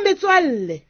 Metswalle,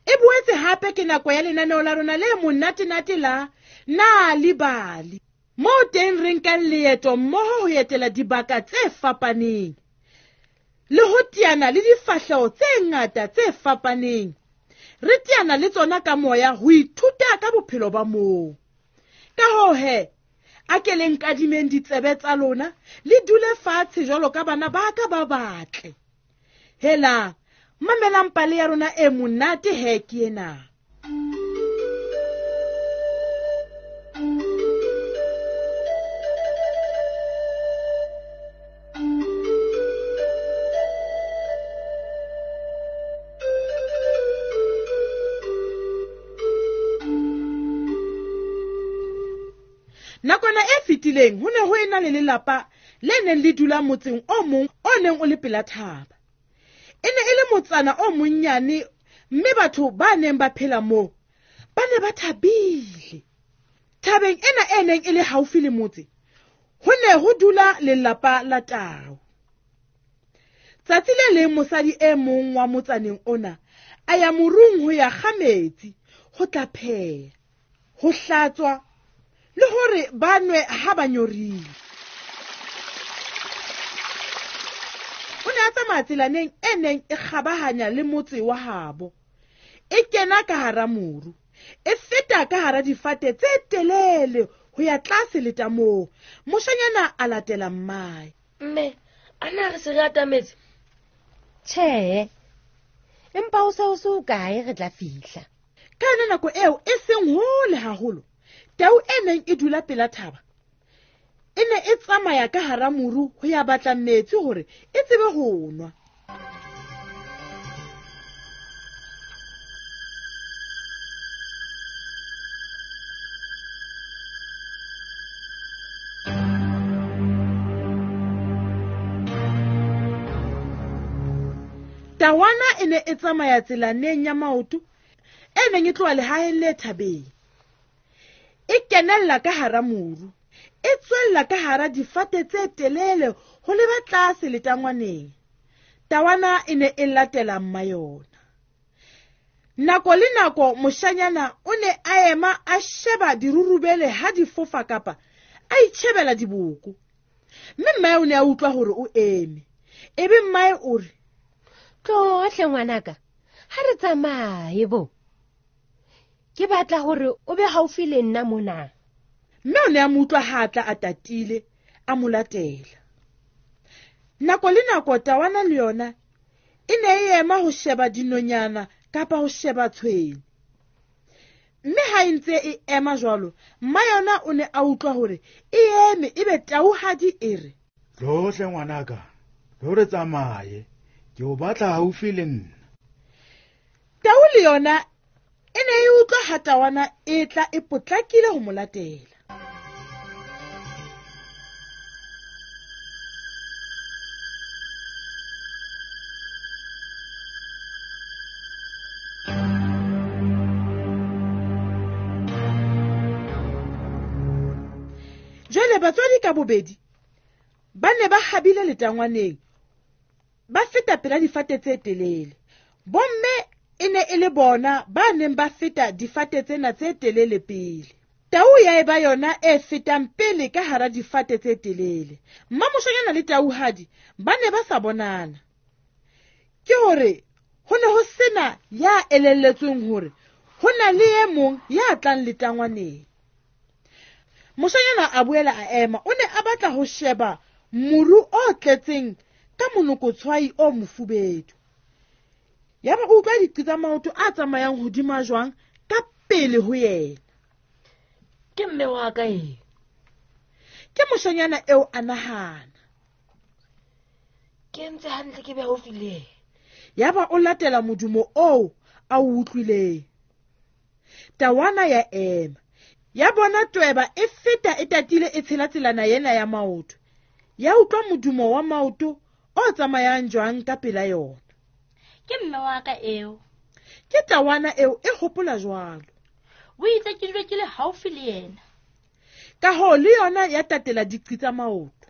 e boetse hape ke nako ya lenaneo la rona le monatenate la Nal'ibali, moo teng re nkang leeto mmoho ho etela dibaka tse fapaneng le ho teana le difahleho tse ngata tse fapaneng. Re teana le tsona ka moya ho ithuta ka bophelo ba moo. Ka hoo he, a ke le nkadimeng ditsebe tsa lona, le dule fatshe jwalo ka bana ba ka ba batle. Hela, mamelang pale ya rona e monate he ke ena. Nakwana e fetileng ho ne ho ena le lelapa le neng le dula motseng o mong o neng o le pela thaba. E ne e le motsana o monnyane, mme batho ba neng ba phela moo ba ne ba thabile. Thabeng ena e neng e le haufi le motse, ho ne ho dula lelapa la tau. Tsatsi le leng mosadi e mong wa motsaneng ona a ya morung ho ya kga metsi, ho tla pheha, ho hlatswa le hore ba nwe ha ba nyorile. O ne a tsamaya tselaneng e neng e kgabahanya le motse wa habo, e kena ka hara moru, e feta ka hara difate tse telele ho ya tlase letamong. Moshanyana a latela mmae. Mme, a na re se re atametse? Tjhe, empa ho se ho se hokae re tla fihla. Ka yona nako eo e seng hole haholo, tau e neng e dula pela thaba e ne e tsamaya ka hara moru ho ya batla metsi hore e tsebe ho nwa. Tawana e ne e tsamaya tselaneng ya maoto e neng e tloha lehaheng le thabeng. E kenella ka hara moru, e tswella ka hara difate tse telele ho leba tlase letangwaneng. Tawana e ne e latela mma yona. Nako le nako moshanyana o ne a ema a sheba dirurubele ha di fofa kapa a itjhebela diboko. Mme mmae o ne a utlwa hore o eme. Ebe mmae o re, Tloha hle ngwanaka, ha re tsamaye bo. Ke batla hore o be haufi le nna mona. Mme o ne a mo utlwa ha a tla a tatile, a mo latela. Nako le nako tawana le yona e ne e ema ho sheba dinonyana kapa ho sheba tshwene. Mme ha e ntse e ema jwalo, mma yona o ne a utlwa hore e eme, ebe tauhadi e re, Tloha hle ngwanaka, tlo re tsamaye, ke o batla haufi le nna. Tau le yona e ne e utlwa ha tawana e tla e potlakile ho mo latela. Jwale batswadi ka bobedi ba ne ba habile letangwaneng, ba feta pela difate tse telele. Bomme e ne e le bona ba neng ba feta difate tsena tse telele pele. Tau ya eba yona e fetang pele ka hara difate tse telele. Mmamoshanyana le tauhadi ba ne ba sa bonana. Ke hore ho ne ho sena ya elelletsweng hore ho na le e mong ya tlang letangwaneng. Moshanyana a boela a ema, o ne a batla ho sheba moru o tletseng ka monokotshwai o mofubedu. Yaba o utlwa diqi tsa maoto a tsamayang hodima jwang ka pele ho yena. Ke mme wa ka e. Ke moshanyana eo a nahana. Ke ntse hantle ke be haufi le yena. Yaba o latela modumo oo a o utlwileng. Tawana ya ema. Ya bona tweba e feta e tatile e tshela tselana ena ya maoto. Ya utlwa modumo wa maoto o tsamayang jwang ka pela yona. Ke mme wa ka eo. Ke tawana eo e hopola jwalo. O itse ke dule ke le haufi le yena. Ka hoo le yona ya tatela diqi tsa maoto.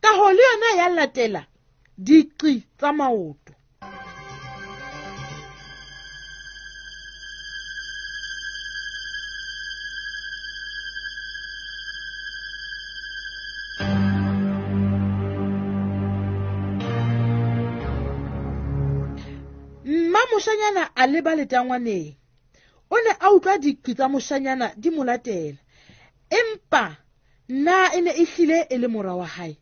Ka hoo le yona ya latela diqi tsa maoto. Mmamoshanyana a leba letangwaneng. O ne a utlwa diqi tsa moshanyana di mo latela. Empa na e ne e hlile e le mora wa hae?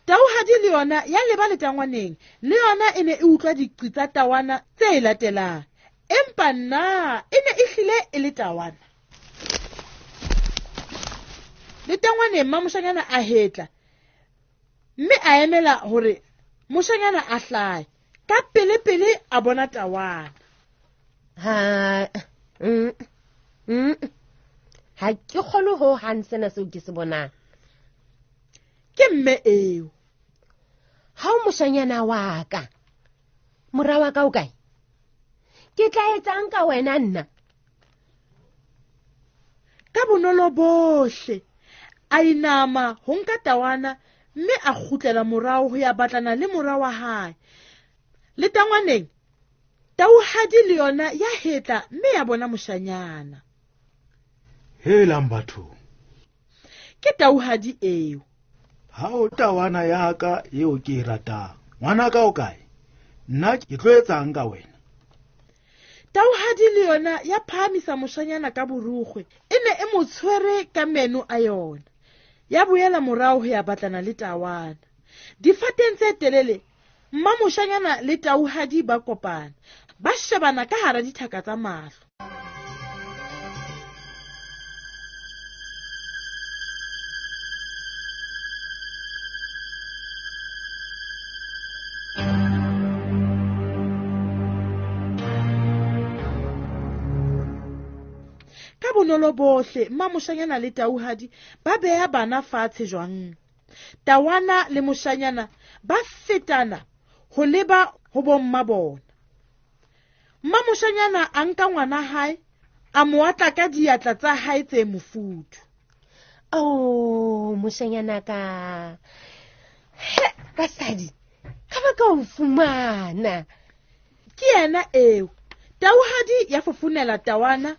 Tauhadi le yona ya leba letangwaneng, le yona e ne e utlwa diqi tsa tawana tse e latelang. Empa na e ne e hlile e le tawana? Letangwaneng mmamoshanyana a hetla mme a emela hore moshanyana a hlahe. Ka pele-pele a bona tawana. Ha ha ke kgolwe ho hang sena seo ke se bonang. Ke mme eo. Ha o moshanyana wa ka, mora wa ka o kae? Ke tla etsang ka wena nna? Ka bonolo bohle a inama ho nka tawana mme a kgutlela morao ho ya batlana le mora wa hae. Letangwaneng tauhadi le yona ya hetla mme ya bona moshanyana. Helang batho. Ke tauhadi eo. Ha o tawana ya ka eo ke e ratang. Ngwana ka o kae? Nna ke tlo etsang ka wena? Tauhadi le yona ya phahamisa moshanyana ka borukgwe. E ne e mo tshwere ka meno a yona. Ya boela morao ho ya batlana le tawana. Difateng tse telele, mmamoshanyana le tauhadi ba kopana. Ba shebana ka hara dithaka tsa mahlo. Ka bonolo bohle mmamoshanyana le tauhadi ba beha bana fatshe jwang. Tawana le moshanyana ba fetana ho leba ho bomma bona. Mmamoshanyana a nka ngwana hae a mo atla ka diatla tsa hae tse mofuthu. Oh, moshanyana ka. He, basadi, ka ba ka o fumana. Ke yena eo. Tauhadi ya fofonela tawana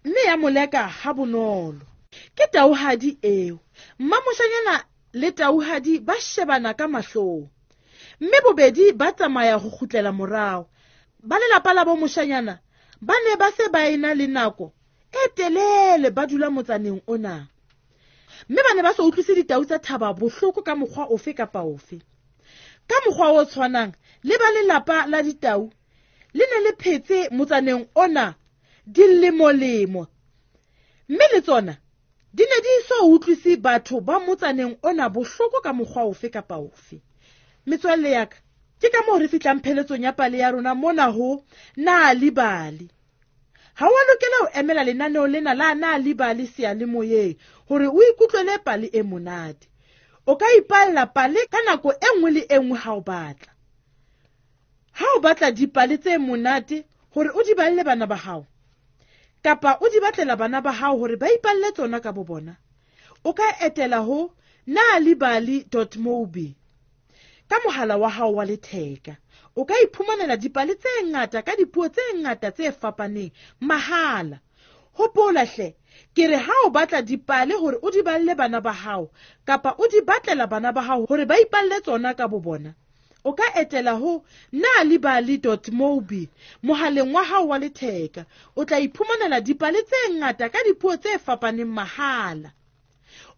mme ya moleka ha bonolo. Ke tauhadi eo. Mmamoshanyana le tauhadi ba shebana ka mahlong. Mme bobedi ba tsamaya ho kgutlela morao. Ba lelapa la bo moshanyana ba ne ba se ba ena le nako e telele ba dula motsaneng ona. Mme ba ne ba sa utlwise ditau tsa thaba bohloko ka mokgwa ofe kapa ofe. Ka mokgwa o tshwanang le ba lelapa la ditau le ne le phetse motsaneng ona dilemolemo. Mme le tsona di ne di so utlwise batho ba motsaneng ona bohloko ka mokgwa ofe kapa ofe. Metswalle ya ka, ke ka moo re fihlang pheletsong ya pale ya rona mona ho Nal'ibali. Ha wa lokela ho emela lenaneo lena la Nal'ibali seyalemoyeng hore o ikutlwele pale e monate. O ka ipalla pale ka nako e nngwe le e nngwe ha o batla. Ha o batla dipale tse monate hore o di balle bana ba hao, kapa o di batlela bana ba hao hore ba ipalle tsona ka bo bona, o ka etela ho nalibali.mobi ka mohala wa hao wa letheka. O ka iphumanela dipale tse ngata ka dipuo tse ngata tse fapaneng mahala. Hopola hle, ke re ha o batla dipale hore o di balle bana ba hao kapa o di batlela bana ba hao hore ba ipalle tsona ka bo bona, o ka etela ho nalibali.mobi mohaleng wa hao wa letheka. O tla iphumanela dipale tse ngata ka dipuo tse fapaneng mahala.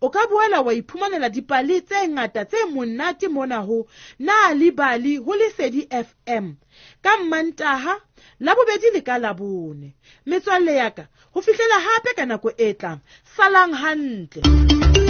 O ka boela wa iphumanela dipale tse ngata tse monate mona ho Nal'ibali ho Lesedi FM ka Mmantaha, Labobedi le ka Labone. Metswalle ya ka, ho fihlela hape ka nako e tlang, salang hantle.